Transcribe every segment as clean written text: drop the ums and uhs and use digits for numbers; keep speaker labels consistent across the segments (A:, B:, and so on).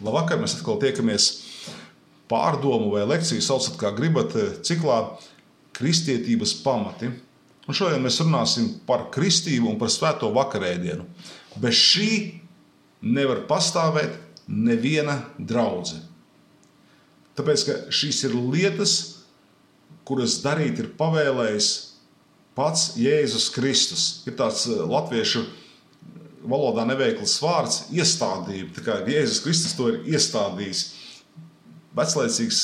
A: Labvakar, mēs atkal tiekamies pārdomu vai lekciju, saucat kā gribat, ciklā Kristietības pamati. Un šodien mēs runāsim par kristību un par svēto vakarēdienu. Bez šī nevar pastāvēt neviena draudze. Tāpēc, ka šīs ir lietas, kuras darīt ir pavēlējis pats Jēzus Kristus. Ir tāds latviešu valodā neveikls vārds iestādība. Tā kā Jēzus Kristus to ir iestādījis. Veclaicīgs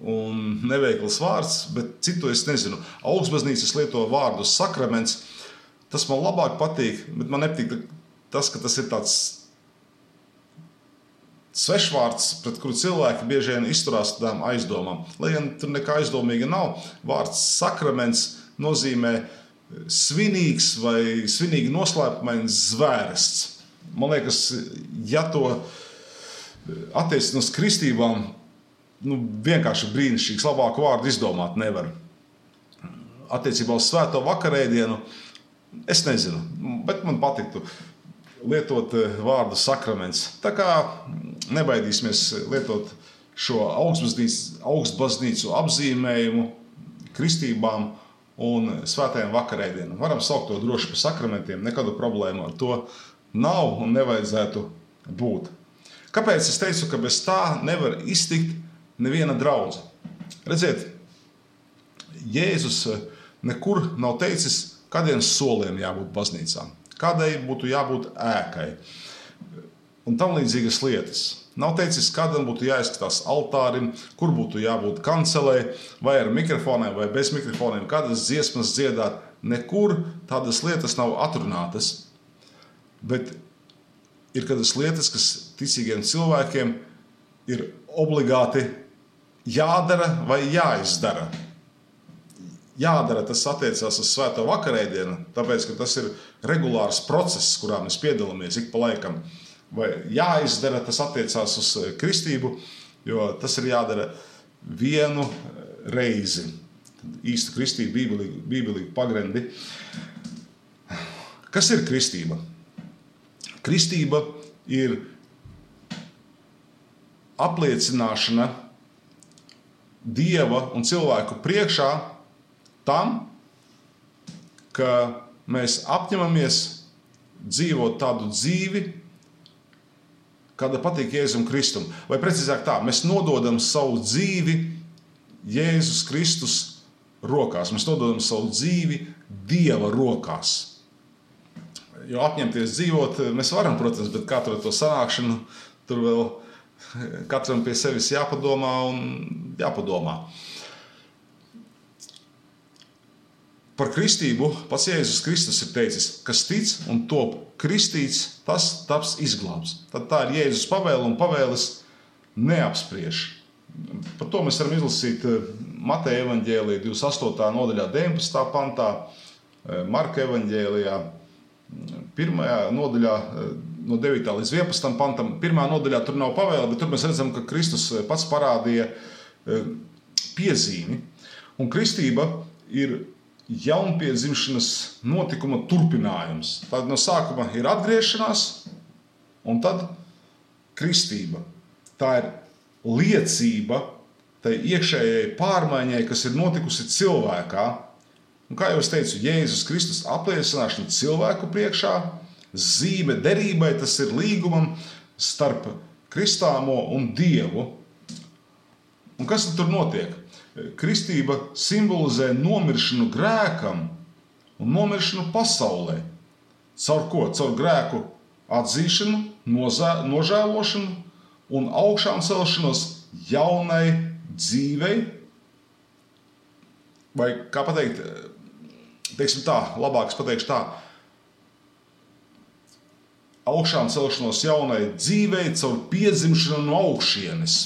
A: un neveikls vārds, bet citu es nezinu. Augstbaznīcas lieto vārdu sakraments. Tas man labāk patīk, bet man nepatīk tas, ka tas ir tāds svešvārds, pret kuru cilvēki bieži vien izturās tādām aizdomām. Lai gan tur nekā aizdomīga nav, vārds sakraments nozīmē svinīgs vai svinīgi noslēpumains zvērsts. Man liekas, ja to attiecināt uz kristībām, vienkārši brīnišķīgs, labāku vārdu izdomāt nevar. Attiecībā uz svēto vakarēdienu, es nezinu, bet man patiktu lietot vārdu sakraments. Tā kā nebaidīsimies lietot šo augstbaznīcu apzīmējumu kristībām un svētajiem vakarēdienam. Varam saukt to droši par sakramentiem, nekādu problēmu ar to nav un nevajadzētu būt. Kāpēc es teicu, ka bez tā nevar iztikt neviena draudze? Redziet, Jēzus nekur nav teicis, kādiem soliem jābūt baznīcām, kādai būtu jābūt ēkai un tam līdzīgas lietas. Nav teicis, kādam būtu jāizskatās altārim, kur būtu jābūt kancelē, vai ar mikrofoniem, vai bez mikrofoniem, kādas dziesmas dziedāt. Nekur tādas lietas nav atrunātas. Bet ir kādas lietas, kas ticīgiem cilvēkiem ir obligāti jādara vai jāizdara. Jādara, tas attiecās uz svēto vakarēdienu, tāpēc, ka tas ir regulārs process, kurā mēs piedalāmies ik pa laikam. Vai jāizdara, tas attiecās uz kristību, jo tas ir jādara vienu reizi. Īsta kristība, bībelīgi pagrendi. Kas ir kristība? Kristība ir apliecināšana Dieva un cilvēku priekšā tam, ka mēs apņemamies dzīvot tādu dzīvi, kāda patīk Jēzum Kristum. Vai precīzāk tā, mēs nododam savu dzīvi Jēzus Kristus rokās. Mēs nododam savu dzīvi Dieva rokās. Jo apņemties dzīvot mēs varam, protams, bet katru to sanākšanu tur vēl katram pie sevis jāpadomā un jāpadomā. Par kristību pats Jēzus Kristus ir teicis, kas tic un top kristīts, tas taps izglābs. Tad tā ir Jēzus pavēle un pavēles neapspriež. Par to mēs varam izlasīt Mateja evaņģēlijā 28. nodaļā 19. pantā, Marka evaņģēlijā 1. nodaļā no 9. līdz 11. pantam. 1. nodaļā tur nav pavēle, bet tur mēs redzam, ka Kristus pats parādīja piezīmi. Un kristība ir jaunpiedzimšanas notikuma turpinājums. Tad no sākuma ir atgriešanās un tad kristība. Tā ir liecība tai iekšējai pārmaiņai, kas ir notikusi cilvēkā. Un kā jau es teicu, Jēzus Kristus apliecināšana cilvēku priekšā, zīme derībai, tas ir līgumam starp kristāmo un Dievu. Un kas tur notiek? Kristība simbolizē nomiršanu grēkam un nomiršanu pasaulē. Caur ko? Caur grēku atzīšanu, nožēlošanu un augšām celšanos jaunai dzīvei. Vai kā pateikt, teiksim tā, labāk es pateikšu tā, augšām celšanos jaunai dzīvei caur piedzimšanu no augšienes.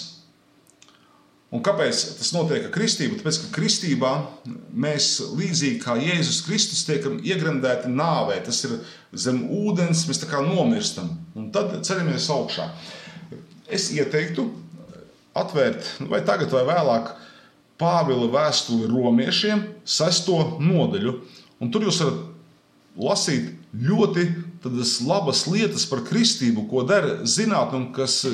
A: Un kāpēc tas notiek ar kristību? Tāpēc, ka kristībā mēs līdzīgi kā Jēzus Kristus tiekam iegremdēti nāvē. Tas ir zem ūdens, mēs tā kā nomirstam. Un tad ceļamies augšā. Es ieteiktu atvērt, vai tagad vai vēlāk, Pāvila vēstuli romiešiem 6. nodaļu. Un tur jūs varat lasīt ļoti tādas labas lietas par kristību, ko dara zinātne un kas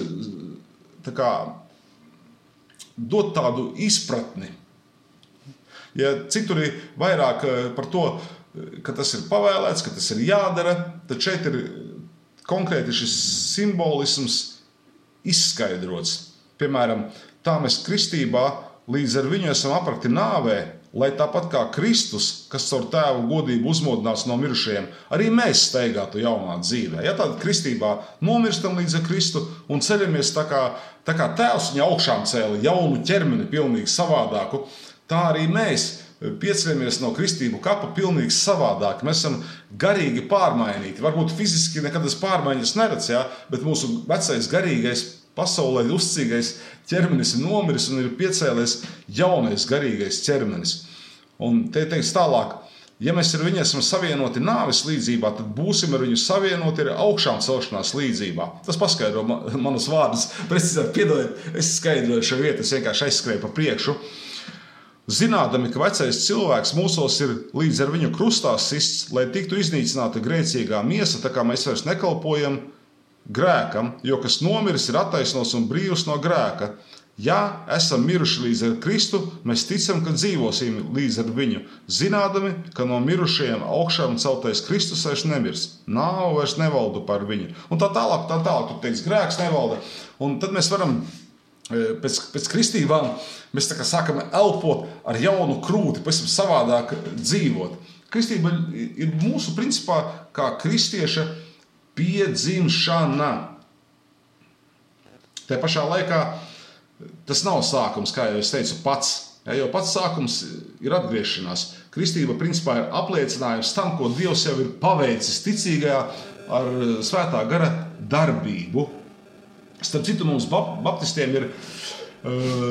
A: dot tādu izpratni. Ja citur ir vairāk par to, ka tas ir pavēlēts, ka tas ir jādara, tad šeit ir konkrēti šis simbolisms izskaidrots. Piemēram, tā mēs kristībā līdz ar viņu esam aprakti nāvē, lai tāpat kā Kristus, kas caur tēvu godību uzmodināts no mirušajiem, arī mēs steigātu jaunā dzīvē. Ja tātad kristībā nomirstam līdz ar Kristu un ceļamies tā kā tēvs viņa augšām cēla jaunu ķermeni pilnīgi savādāku, tā arī mēs pieceļamies no kristību kapa pilnīgi savādāk. Mēs esam garīgi pārmainīti. Varbūt fiziski nekad tas pārmaiņas neredz, ja? Bet mūsu vecais garīgais pasaulē uzcīgais ķermenis ir nomiris un ir piecēlies jaunais garīgais ķermenis. Un te teikts tālāk, ja mēs ar viņu esam savienoti nāves līdzībā, tad būsim ar viņu savienoti ar augšām celšanās līdzībā. Tas paskaidro manus vārdus. Precīzāk, piedodiet, es skaidroju šo vietu, es vienkārši aizskrēju pa priekšu. Zinādami, ka vecais cilvēks mūsos ir līdz ar viņu krustā sists, lai tiktu iznīcināta grēcīgā miesa, tā kā mēs vairs nekalpojam grēkam, jo kas nomiris ir attaisnots un brīvs no grēka. Ja esam miruši līdz ar Kristu, mēs ticam, ka dzīvosim līdz ar viņu, zinādami, ka no mirušajiem augšām celtais Kristus vairs nemirs. Nāve vairs nevalda par viņu. Un tā tālāk, tu teiks, grēks nevalda. Un tad mēs varam pēc kristībām, mēs tā kā sākam elpot ar jaunu krūti, pavisam savādāk dzīvot. Kristība ir mūsu principā kā kristieša piedzimšana. Tajā pašā laikā tas nav sākums, kā jau es teicu, pats. Ja, jo pats sākums ir atgriešanās. Kristība principā ir apliecinājums tam, ko Dievs jau ir paveicis ticīgajā ar svētā gara darbību. Starp citu, mums baptistiem ir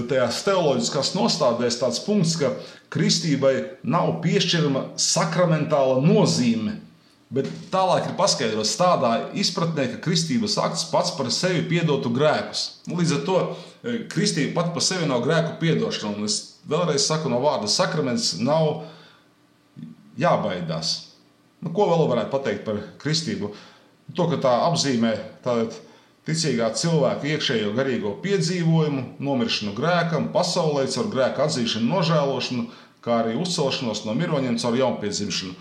A: tajās teoloģiskās nostādēs tāds punkts, ka kristībai nav piešķirama sakramentāla nozīme, bet tālāk ir paskaidrots tādā izpratnē, ka kristības akts pats par sevi piedotu grēkus. Līdz ar to kristība pat par sevi nav grēku piedošana. Un es vēlreiz saku no vārda sakraments nav jābaidās. Ko vēl varētu pateikt par kristību? To, ka tā apzīmē tātad ticīgā cilvēka iekšējo garīgo piedzīvojumu, nomiršanu grēkam, pasaulē caur grēku atzīšanu, nožēlošanu, kā arī uzcelšanos no miroņiem caur jaunpiedzimšanu.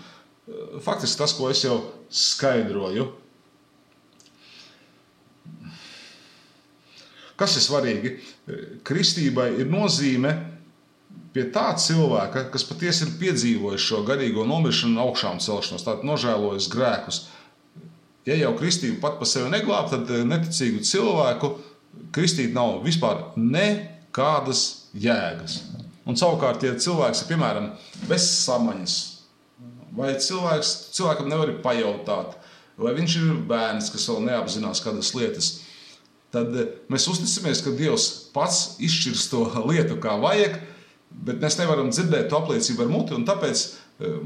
A: Faktiski tas, ko es jau skaidroju. Kas ir svarīgi? Kristībai ir nozīme pie tā cilvēka, kas patiesi ir piedzīvojis šo garīgo nomiršanu un augšām celšanos, tātad nožēlojis grēkus. Ja jau kristība pat pa sevi neglāb, tad neticīgu cilvēku kristīt nav vispār nekādas jēgas. Un savukārt, ja cilvēks ir, piemēram, bez samaņas, vai cilvēkam nevar pajautāt, vai viņš ir bērns, kas vēl neapzinās kādas lietas, tad mēs uzticamies, ka Dievs pats izšķirs to lietu kā vajag, bet mēs nevaram dzirdēt to apliecību ar muti, un tāpēc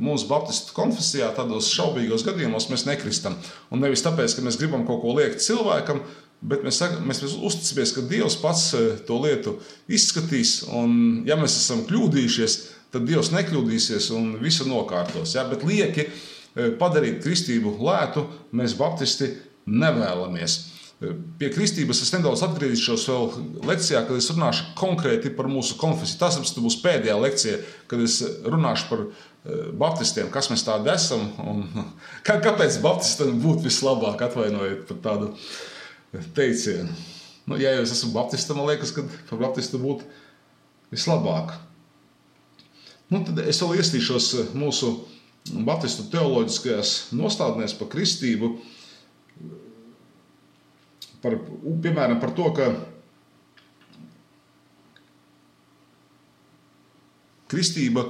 A: mūsu baptistu konfesijā tādos šaubīgos gadījumos mēs nekristam. Un nevis tāpēc, ka mēs gribam kaut ko liekt cilvēkam, bet mēs uzticamies, ka Dievs pats to lietu izskatīs, un ja mēs esam kļūdījušies, tad Dievs nekļūdīsies un visu nokārtos. Ja? Bet lieki padarīt kristību lētu mēs baptisti nevēlamies. Pie kristības es nedaudz atgriezīšos vēl lekcijā, kad es runāšu konkrēti par mūsu konfesiju. Tas būs pēdējā lekcija, kad es runāšu par baptistiem, kas mēs tādi esam un kāpēc baptistam būtu vislabāk, atvainojiet par tādu teicienu. Ja jau es esmu baptista, man liekas, ka par baptistu būtu vislabāk. Tad es vēl iestīšos mūsu baptistu teoloģiskajās nostādnēs par kristību, piemēram, par to, ka kristība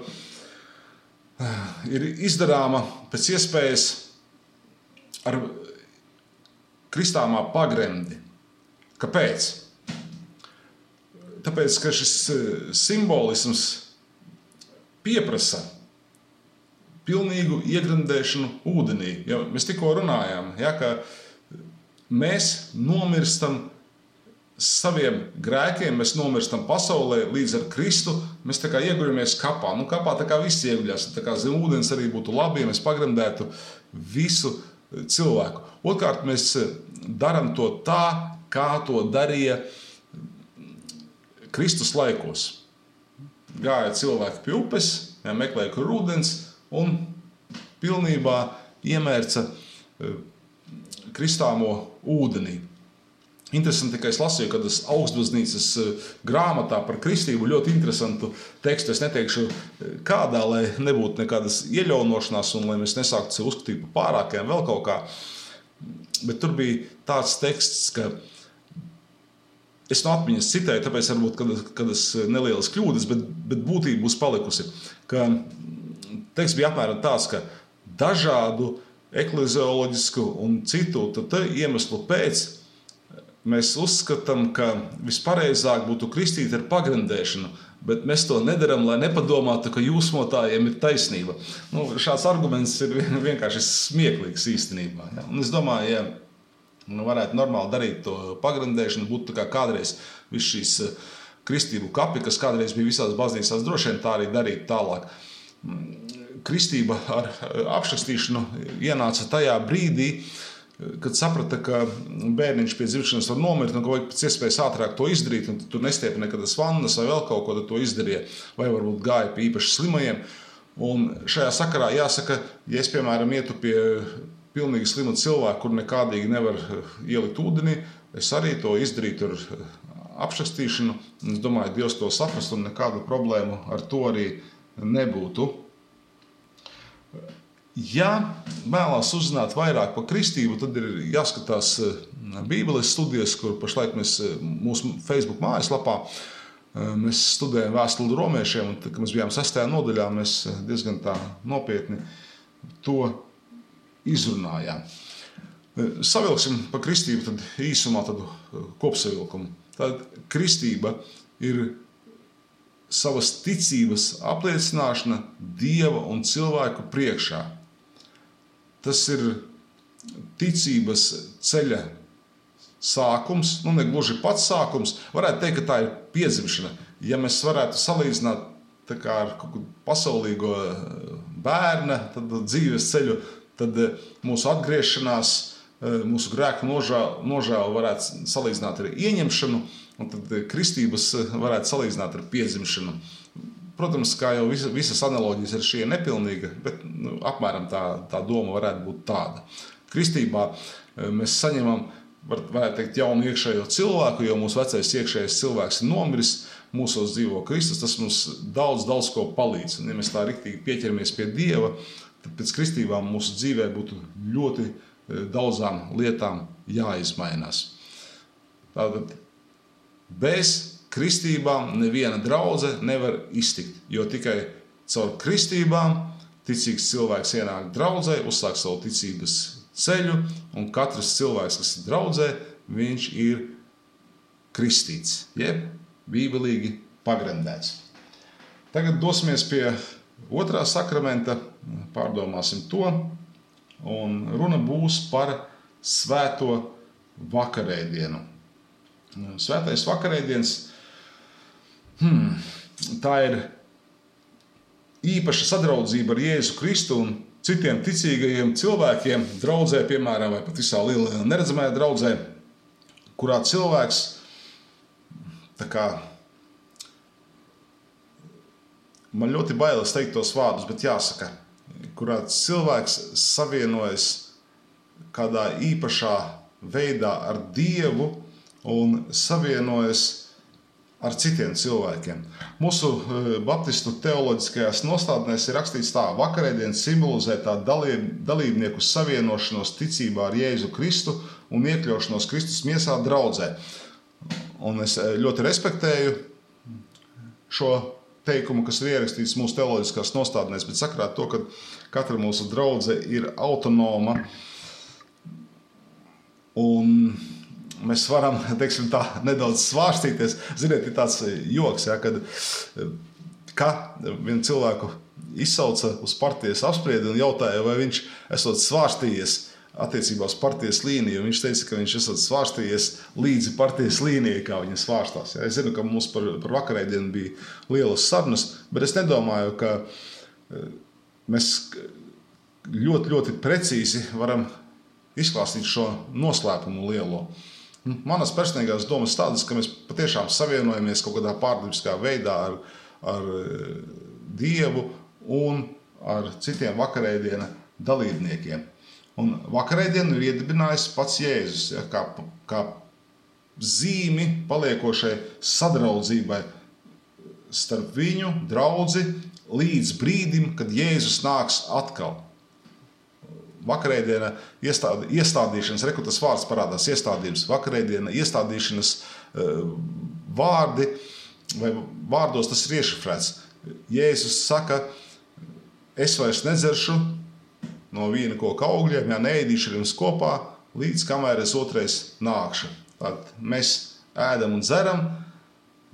A: ir izdarāma pēc iespējas ar kristāmā pagremdi. Kāpēc? Tāpēc, ka šis simbolisms pieprasa pilnīgu iegremdēšanu ūdenī. Ja mēs tikko runājām, ja, ka mēs nomirstam saviem grēkiem, mēs nomirstam pasaulē līdz ar Kristu, mēs tā kā ieguļamies kapā. Kapā tā kā viss ieguļās, tā kā zem ūdens arī būtu labi, ja mēs pagremdētu visu cilvēku. Otrkārt, mēs daram to tā, kā to darīja Kristus laikos gāja cilvēki pie upes, meklēja, kur ūdens, un pilnībā iemērca kristāmo ūdenī. Interesanti, ka es lasīju, kad es Augstbaznīcas grāmatā par kristību ļoti interesantu tekstu. Es neteikšu kādā, lai nebūtu nekādas ieļaunošanās un lai mēs nesāktu sev uzskatīt par pārākajām vēl kaut kā. Bet tur bija tāds teksts, ka es no atmiņas citēju, tāpēc varbūt, kad es nelielas kļūdas, bet būtība būs palikusi. Ka teksts bija apmēram tāds, ka dažādu eklezioloģisku un citu iemeslu pēc mēs uzskatām, ka vispareizāk būtu kristīt ar pagrandēšanu, bet mēs to nedaram, lai nepadomātu, ka jūsmotājiem ir taisnība. Šāds arguments ir vienkārši smieklīgs īstenībā. Ja? Un es domāju, ja varētu normāli darīt to pagrandēšanu, būtu tā kā kādreiz viss šīs kristību kapi, kas kādreiz bija visās baznīcās, droši vien tā arī darīt tālāk. Kristība ar apšakstīšanu ienāca tajā brīdī, kad saprata, ka bērniņš pie dzimšanas var nomirt un ka vajag pēc iespējas ātrāk to izdarīt, un tur nestiepja nekādas vannas vai vēl kaut ko, tad to izdarīja, vai varbūt gāja pie īpaši slimajiem. Un šajā sakarā jāsaka, ja es, piemēram, ietu pie pilnīgi slima cilvēku, kur nekādīgi nevar ielikt ūdenī, es arī to izdarītu ar apšakstīšanu. Es domāju, Dievs to saprast un nekādu problēmu ar to arī nebūtu. Ja vēlās uzzināt vairāk par kristību, tad ir jāskatās Bībeles studijas, kur pašlaik mēs mūsu Facebook mājaslapā mēs studējam vēstuli romiešiem, un kad mēs bijām 6. nodaļā, mēs diezgan tā nopietni to izrunājām. Savilksim par kristību tad īsumā tādu kopsavilkumu. Tad kristība ir savas ticības apliecināšana Dieva un cilvēku priekšā. Tas ir ticības ceļa sākums, ne gluži pats sākums. Varētu teikt, ka tā ir piedzimšana. Ja mēs varētu salīdzināt tā kā ar kaut kādu pasaulīgo bērna dzīves ceļu, tad mūsu atgriešanās, mūsu grēku nožēlu varētu salīdzināt ar ieņemšanu, un tad kristības varētu salīdzināt ar piedzimšanu. Protams, kā jau visas analoģijas ar šī ir nepilnīga, bet apmēram tā doma varētu būt tāda. Kristībā mēs saņemam, varētu teikt, jaunu iekšējo cilvēku, jo mūsu vecais iekšējais cilvēks ir nomiris, mūsos dzīvo Kristus, tas mums daudz ko palīdz. Un ja mēs tā riktīgi pieķeramies pie Dieva, tad pēc kristībām mūsu dzīvē būtu ļoti daudzām lietām jāizmainās. Tātad bez kristībām neviena draudze nevar iztikt, jo tikai caur kristībām ticīgs cilvēks ienāk draudzē, uzsāk savu ticības ceļu, un katrs cilvēks, kas ir draudzē, viņš ir kristīts, jeb bībelīgi pagrandēts. Tagad dosimies pie otrā sakramenta, pārdomāsim to, un runa būs par svēto vakarēdienu. Svētais vakarēdiens tā ir īpaša sadraudzība ar Jēzu Kristu un citiem ticīgajiem cilvēkiem draudzē, piemēram, vai pat visā lielajā neredzamajā draudzē, kurā cilvēks tā kā man ļoti bailes teikt tos vārdus, bet jāsaka, kurā cilvēks savienojas kādā īpašā veidā ar Dievu un savienojas ar citiem cilvēkiem. Mūsu baptistu teoloģiskajās nostādnēs ir rakstīts tā: vakarēdiens simbolizē tā dalībnieku savienošanos ticībā ar Jēzu Kristu un iekļaušanos Kristus miesā draudzē. Un es ļoti respektēju šo teikumu, kas ir ierakstīts mūsu teoloģiskās nostādnēs, bet sakrāt to, ka katra mūsu draudze ir autonoma un mēs varam, teiksim tā, nedaudz svārstīties. Ziniet, ir tāds joks, ja, kad vienu cilvēku izsauca uz partijas apspriedi un jautāja, vai viņš esot svārstījies attiecībā uz partijas līniju. Viņš teica, ka viņš esot svārstījies līdzi partijas līnijai, kā viņa svārstās. Ja. Es zinu, ka mums par vakarēdienu bija lielas sarunas, bet es nedomāju, ka mēs ļoti precīzi varam izklāstīt šo noslēpumu lielo. Manas personīgās domas tādas, ka mēs patiešām savienojamies kaut kādā pārdabiskā veidā ar Dievu un ar citiem vakarēdiena dalībniekiem. Un vakarēdienu ir iedibinājis pats Jēzus, ja, kā zīmi paliekošai sadraudzībai starp viņu, draudzi, līdz brīdim, kad Jēzus nāks atkal. Vakarēdiena iestādīšanas, tas vārds parādās iestādījums, vakarēdiena iestādīšanas vārdi, vai vārdos tas ir iešifrēts. Jēzus saka, es vairs nedzeršu no vīna koka augļiem, ja neēdīšu ar jums kopā, līdz kamēr es otrais nākšu. Tad mēs ēdam un dzeram,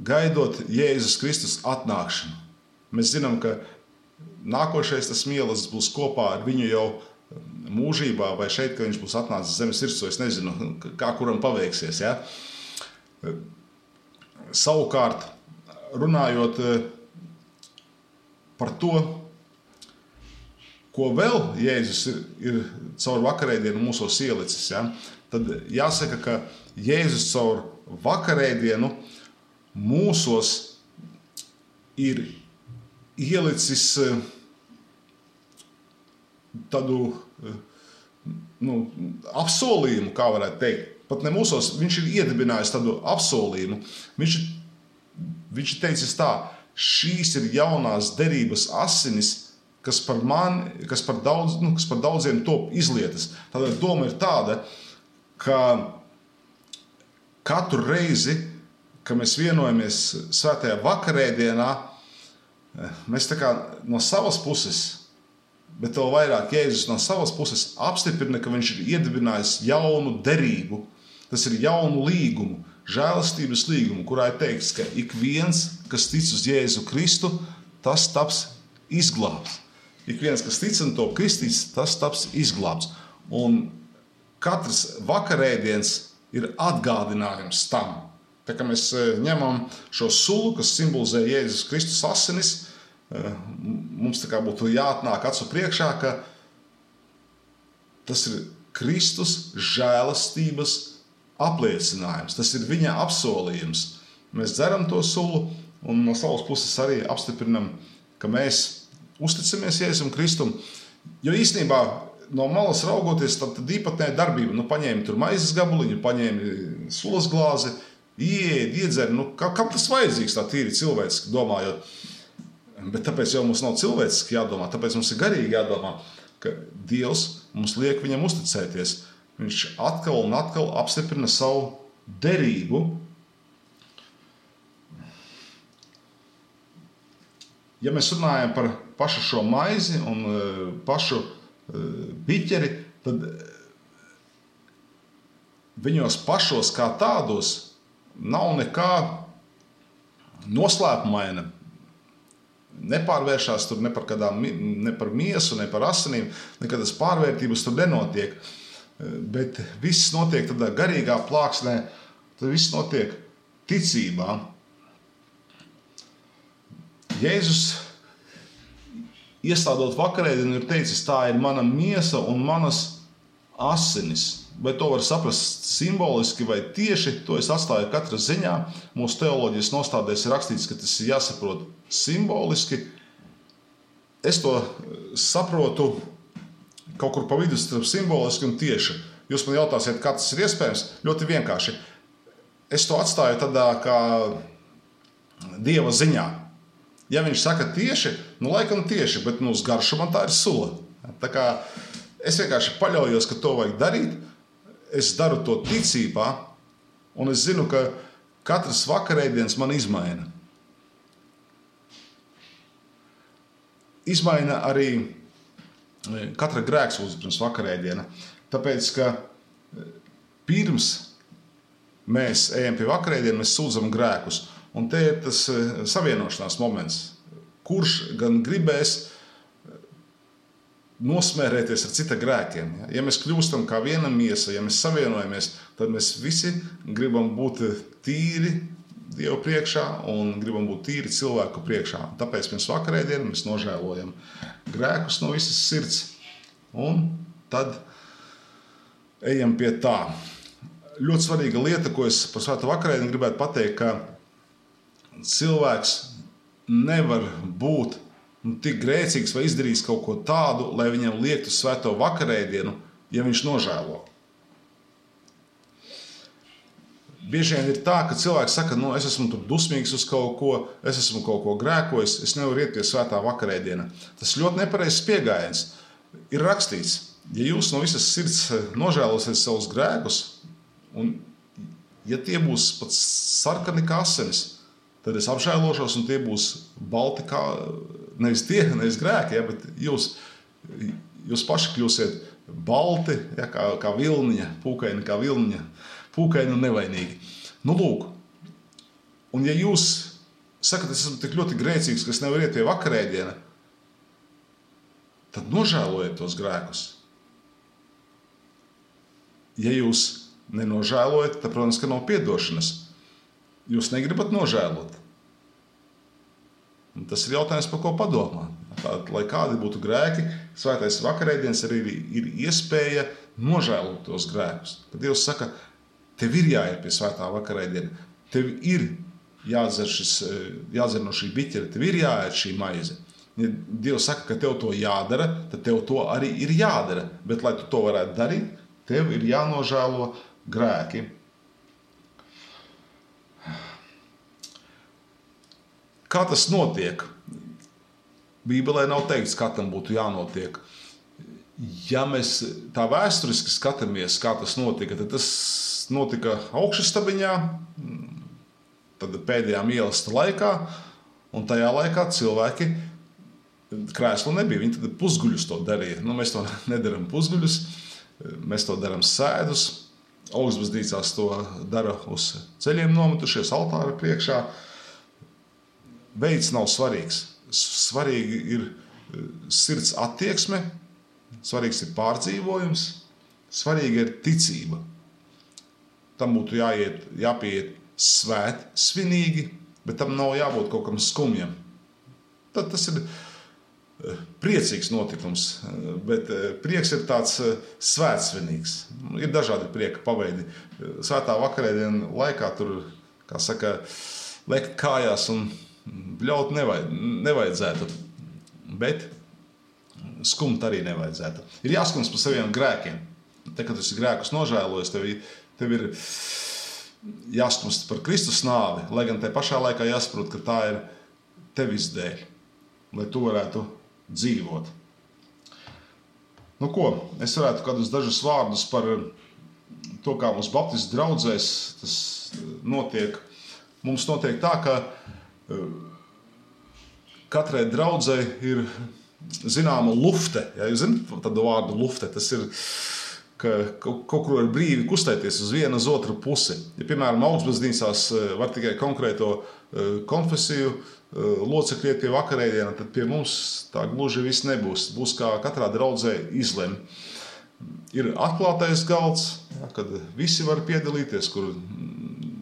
A: gaidot Jēzus Kristus atnākšanu. Mēs zinām, ka nākošais tas mielas būs kopā ar viņu jau mūžībā, vai šeit, ka viņš būs atnācis zemes virsū, es nezinu, kā kuram paveiksies. Ja? Savukārt, runājot par to, ko vēl Jēzus ir caur vakarēdienu mūsos ielicis, ja? Tad jāsaka, ka Jēzus caur vakarēdienu mūsos ir ielicis tādu apsolījumu, kā varētu teikt. Pat ne mūsos, viņš ir iedibinājis tādu apsolījumu. Viņš ir teicis tā, šīs ir jaunās derības asinis, kas par daudziem top izlietas. Tātad doma ir tāda, ka katru reizi, kad mēs vienojamies svētajā vakarēdienā, mēs tā kā no savas puses, bet vēl vairāk Jēzus no savas puses apstiprina, ka viņš ir iedibinājis jaunu derību. Tas ir jaunu līgumu, žēlastības līgumu, kurā ir teikts, ka ik viens, kas tic uz Jēzu Kristu, tas taps izglābts. Ik viens, kas tic un top kristīts, tas taps izglābts. Un katrs vakarēdiens ir atgādinājums tam. Tā kā mēs ņemam šo sulu, kas simbolizē Jēzus Kristus asinis, mums tā kā būtu jāatnāk acu priekšā, ka tas ir Kristus žēlastības apliecinājums. Tas ir viņa apsolījums. Mēs dzeram to sulu un no savas puses arī apstiprinam, ka mēs uzticamies Jēzum Kristum. Jo īstenībā no malas raugoties, tad īpatnēja darbība. Paņēmi tur maizes gabaliņu, paņēmi sulas glāzi, iedzeri. Kam tas vajadzīgs tā tīri cilvēciski domājot? Bet tāpēc jau mums nav cilvēciski jādomā, tāpēc mums ir garīgi jādomā, ka Dievs mums liek viņam uzticēties. Viņš atkal un atkal apstiprina savu derību. Ja mēs runājam par pašu šo maizi un pašu biķeri, tad viņos pašos kā tādos nav nekā noslēpumaina. Nepārvēršās tur ne par miesu, ne par asinīm, nekādas pārvērtības tur nenotiek. Bet viss notiek tādā garīgā plāksnē, tad viss notiek ticībā. Jēzus, iestādot vakarēdienu, ir teicis, tā ir mana miesa un manas asinis. Vai to var saprast simboliski vai tieši, to es atstāju katra ziņā. Mūsu teoloģijas nostādēs ir rakstīts, ka tas ir jāsaprot simboliski. Es to saprotu kaut kur pa vidu starp simboliski un tieši. Jūs man jautāsiet, kā tas ir iespējams? Ļoti vienkārši. Es to atstāju tādā kā Dieva ziņā. Ja viņš saka tieši, laikam tieši, bet uz garšu man tā ir sula. Tā kā es vienkārši paļaujos, ka to vajag darīt. Es daru to ticībā, un es zinu, ka katrs vakarēdiens man izmaina. Izmaina arī katra grēksūdze pirms vakarēdiena. Tāpēc, ka pirms mēs ejam pie vakarēdiena, mēs sūdzam grēkus. Un te ir tas savienošanās moments, kurš gan gribēs nosmērēties ar cita grēkiem. Ja mēs kļūstam kā viena miesa, ja mēs savienojamies, tad mēs visi gribam būt tīri Dievu priekšā un gribam būt tīri cilvēku priekšā. Tāpēc pirms vakarēdienu mēs nožēlojam grēkus no visas sirds un tad ejam pie tā. ļoti svarīga lieta, ko es par svēto vakarēdienu gribētu pateikt, ka cilvēks nevar būt tik grēcīgs vai izdarījis kaut ko tādu, lai viņam liektu svēto vakarēdienu, ja viņš nožēlo. Bieži vien ir tā, ka cilvēks saka, es esmu tur dusmīgs uz kaut ko, es esmu kaut ko grēkojis, es nevaru iet pie svētā vakarēdiena. Tas ļoti nepareizs pieejams. Ir rakstīts, ja jūs no visas sirds nožēlosiet savus grēkus, un ja tie būs pat sarkani kā asinis, tad es apžēlošos, un tie būs balti kā, nevis grēki, ja, bet jūs paši kļūsiet balti, ja, kā vilniņa, pūkaini kā vilniņa, pūkaini un nevainīgi. Lūk, un ja jūs sakat, es esmu tik ļoti grēcīgs, ka es nevaru iet pie vakarēdiena, tad nožēlojiet tos grēkus. Ja jūs nenožēlojat, tad, protams, ka nav piedošanas. Jūs negribat nožēlot. Un tas ir jautājums, par ko padomāt. Lai kādi būtu grēki, svētais vakarēdiens arī ir iespēja nožēlot tos grēkus. Tad Dievs saka, tev ir jāiet pie svētā vakarēdiena, tev ir jādzer no šī biķera, tev ir jāiet šī maize. Ja Dievs saka, ka tev to jādara, tad tev to arī ir jādara. Bet, lai tu to varētu darīt, tev ir jānožēlo grēki. Kā tas notiek? Bībelē nav teikts, kā tam būtu jānotiek. Ja mēs tā vēsturiski skatāmies, kā tas notika, tad tas notika augšastabiņā, tad pēdējā mīlestības laikā, un tajā laikā cilvēki krēslu nebija. Viņi tad pusguļus to darīja. Mēs to nedaram pusguļus, mēs to daram sēdus. Augstbaznīcās to dara uz ceļiem nometušies, altāra priekšā. Veids nav svarīgs. Svarīgi ir sirds attieksme, svarīgs ir pārdzīvojums, svarīga ir ticība. Tam būtu jāpieiet svinīgi, bet tam nav jābūt kaut kam skumjam. Tad tas ir priecīgs notikums, bet prieks ir tāds svētsvinīgs. Ir dažādi prieka paveidi. Svētā vakarēdiena laikā tur, kā saka, lekt kājās un bļaut nevajadzētu, bet skumt arī nevajadzētu. Ir jāskums par saviem grēkiem. Te, kad tu esi grēkus nožēlojis, tev ir jāskumst par Kristus nāvi, lai gan te pašā laikā jāsaprot, ka tā ir tevis dēļ, lai tu varētu dzīvot. Es varētu kādus dažus vārdus par to, kā mums baptistu draudzēs tas notiek. Mums notiek tā, ka katrai draudzei ir zināma lufte. Ja, jūs zināt tādu vārdu lufte? Tas ir, ka kaut kur var brīvi kustēties uz vienu, uz otru pusi. Ja, piemēram, augstbaznīcās var tikai konkrēto konfesiju locekļi iet pie vakarēdiena, tad pie mums tā gluži viss nebūs. Būs kā katrā draudzē izlem. Ir atklātais galds, ja, kad visi var piedalīties, kur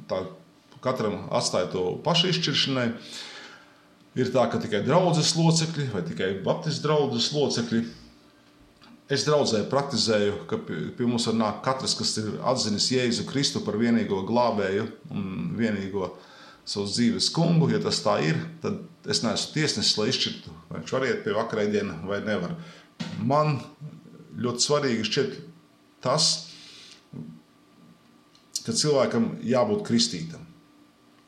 A: tā katram atstāja to pašu izšķiršanai. Ir tā, ka tikai draudzes locekļi vai tikai baptistu draudzes locekļi. Es draudzē praktizēju, ka pie mums var nākt katrs, kas ir atzinis Jēzu Kristu par vienīgo glābēju un vienīgo savas dzīves kungu. Ja tas tā ir, tad es neesmu tiesnesis, lai izšķirtu, vai viņš var iet pie vakarēdiena vai nevar. Man ļoti svarīgi šķiet tas, ka cilvēkam jābūt kristītam.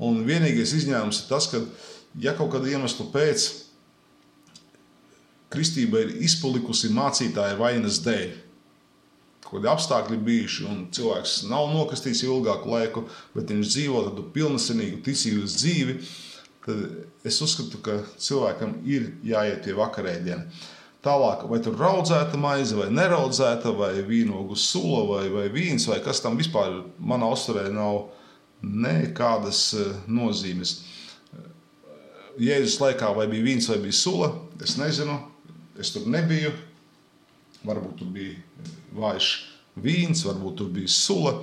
A: Un vienīgais izņēmums ir tas, ka ja kaut kādu iemeslu pēc kristība ir izpalikusi mācītāja vainas dēļ, kādi apstākļi bijuši un cilvēks nav nokastīts ilgāku laiku, bet viņš dzīvo tādu pilnasenīgu ticības dzīvi, tad es uzskatu, ka cilvēkam ir jāiet pie vakarēdiena. Tālāk, vai tur raudzēta maize, vai neraudzēta, vai vīnogu sula, vai vīns, vai kas tam vispār manā uzturē nav nekādas nozīmes. Jēzus laikā vai bija vīns, vai bija sula, es nezinu, es tur nebiju. Varbūt tur bija vājš vīns, varbūt tur bija sula.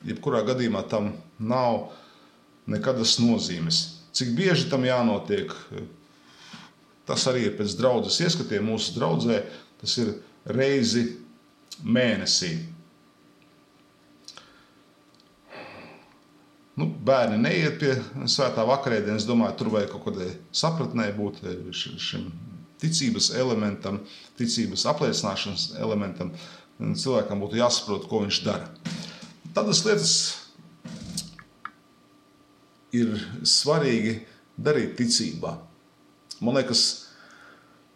A: Jebkurā gadījumā tam nav nekādas nozīmes. Cik bieži tam jānotiek, tas arī ir pēc draudzes ieskatiem mūsu draudzē, tas ir reizi mēnesī. bērni neiet pie svētā vakarēdienas, domāju, tur vajag kaut kādai sapratnē būt šim ticības elementam, ticības apliecināšanas elementam. Cilvēkam būtu jāsaprot, ko viņš dara. Tādas lietas ir svarīgi darīt ticībā. Man liekas,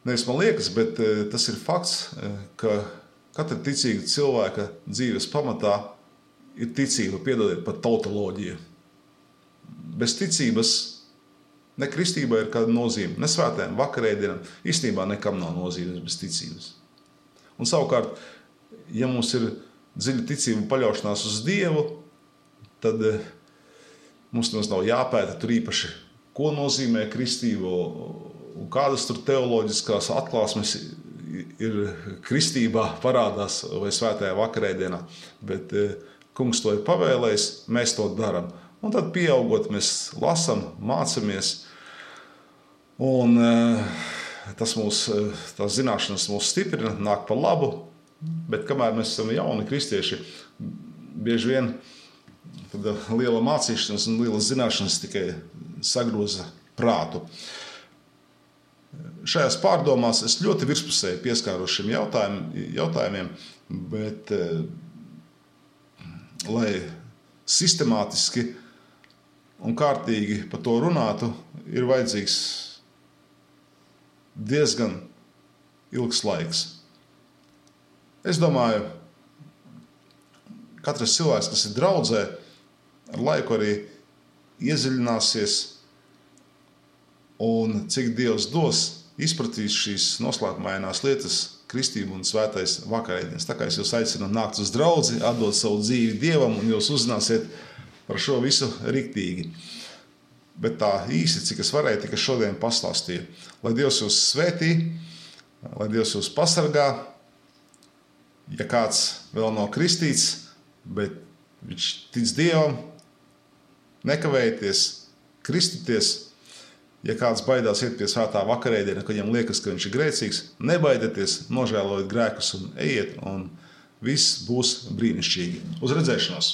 A: nevis man liekas, bet tas ir fakts, ka katra ticīga cilvēka dzīves pamatā ir ticība, piedodiet, pat tautoloģija. Bez ticības ne kristībai ir kāda nozīme, ne svētajām vakarēdienām, īstenībā nekam nav nozīmes bez ticības. Un savukārt, ja mums ir dziļa ticība paļaušanās uz Dievu, tad mums nav jāpēta tur īpaši, ko nozīmē kristība un kādas tur teoloģiskās atklāsmes ir kristībā parādās vai svētajā vakarēdienā, bet Kungs to ir pavēlējis, mēs to darām. Un tad pieaugot, mēs lasam, mācamies, un tās zināšanas mūs stiprina, nāk par labu, bet kamēr mēs esam jauni kristieši, bieži vien liela mācīšanas un liela zināšanas tikai sagroza prātu. Šajās pārdomās es ļoti virspusēji pieskāros šiem jautājumiem, bet lai sistemātiski un kārtīgi par to runātu, ir vajadzīgs diezgan ilgs laiks. Es domāju, katrs cilvēks, kas ir draudzē, ar laiku arī iedziļināsies un cik Dievs dos, izpratīs šīs noslēpumainās lietas, kristību un svētais vakarēdienas. Tā kā es jūs aicinu nākt uz draudzi, atdot savu dzīvi Dievam, un jūs uzzināsiet par šo visu riktīgi. Bet tā īsi, cik es varēju, tikai šodien pastāstīju. Lai Dievs jūs svētī, lai Dievs jūs pasargā, ja kāds vēl nav kristīts, bet viņš tic Dievam, nekavējieties, kristieties. Ja kāds baidās iet pie svētā vakarēdiena, kad viņam liekas, ka viņš ir grēcīgs, nebaidieties, nožēlojiet grēkus un ejiet, un viss būs brīnišķīgi. Uz redzēšanos!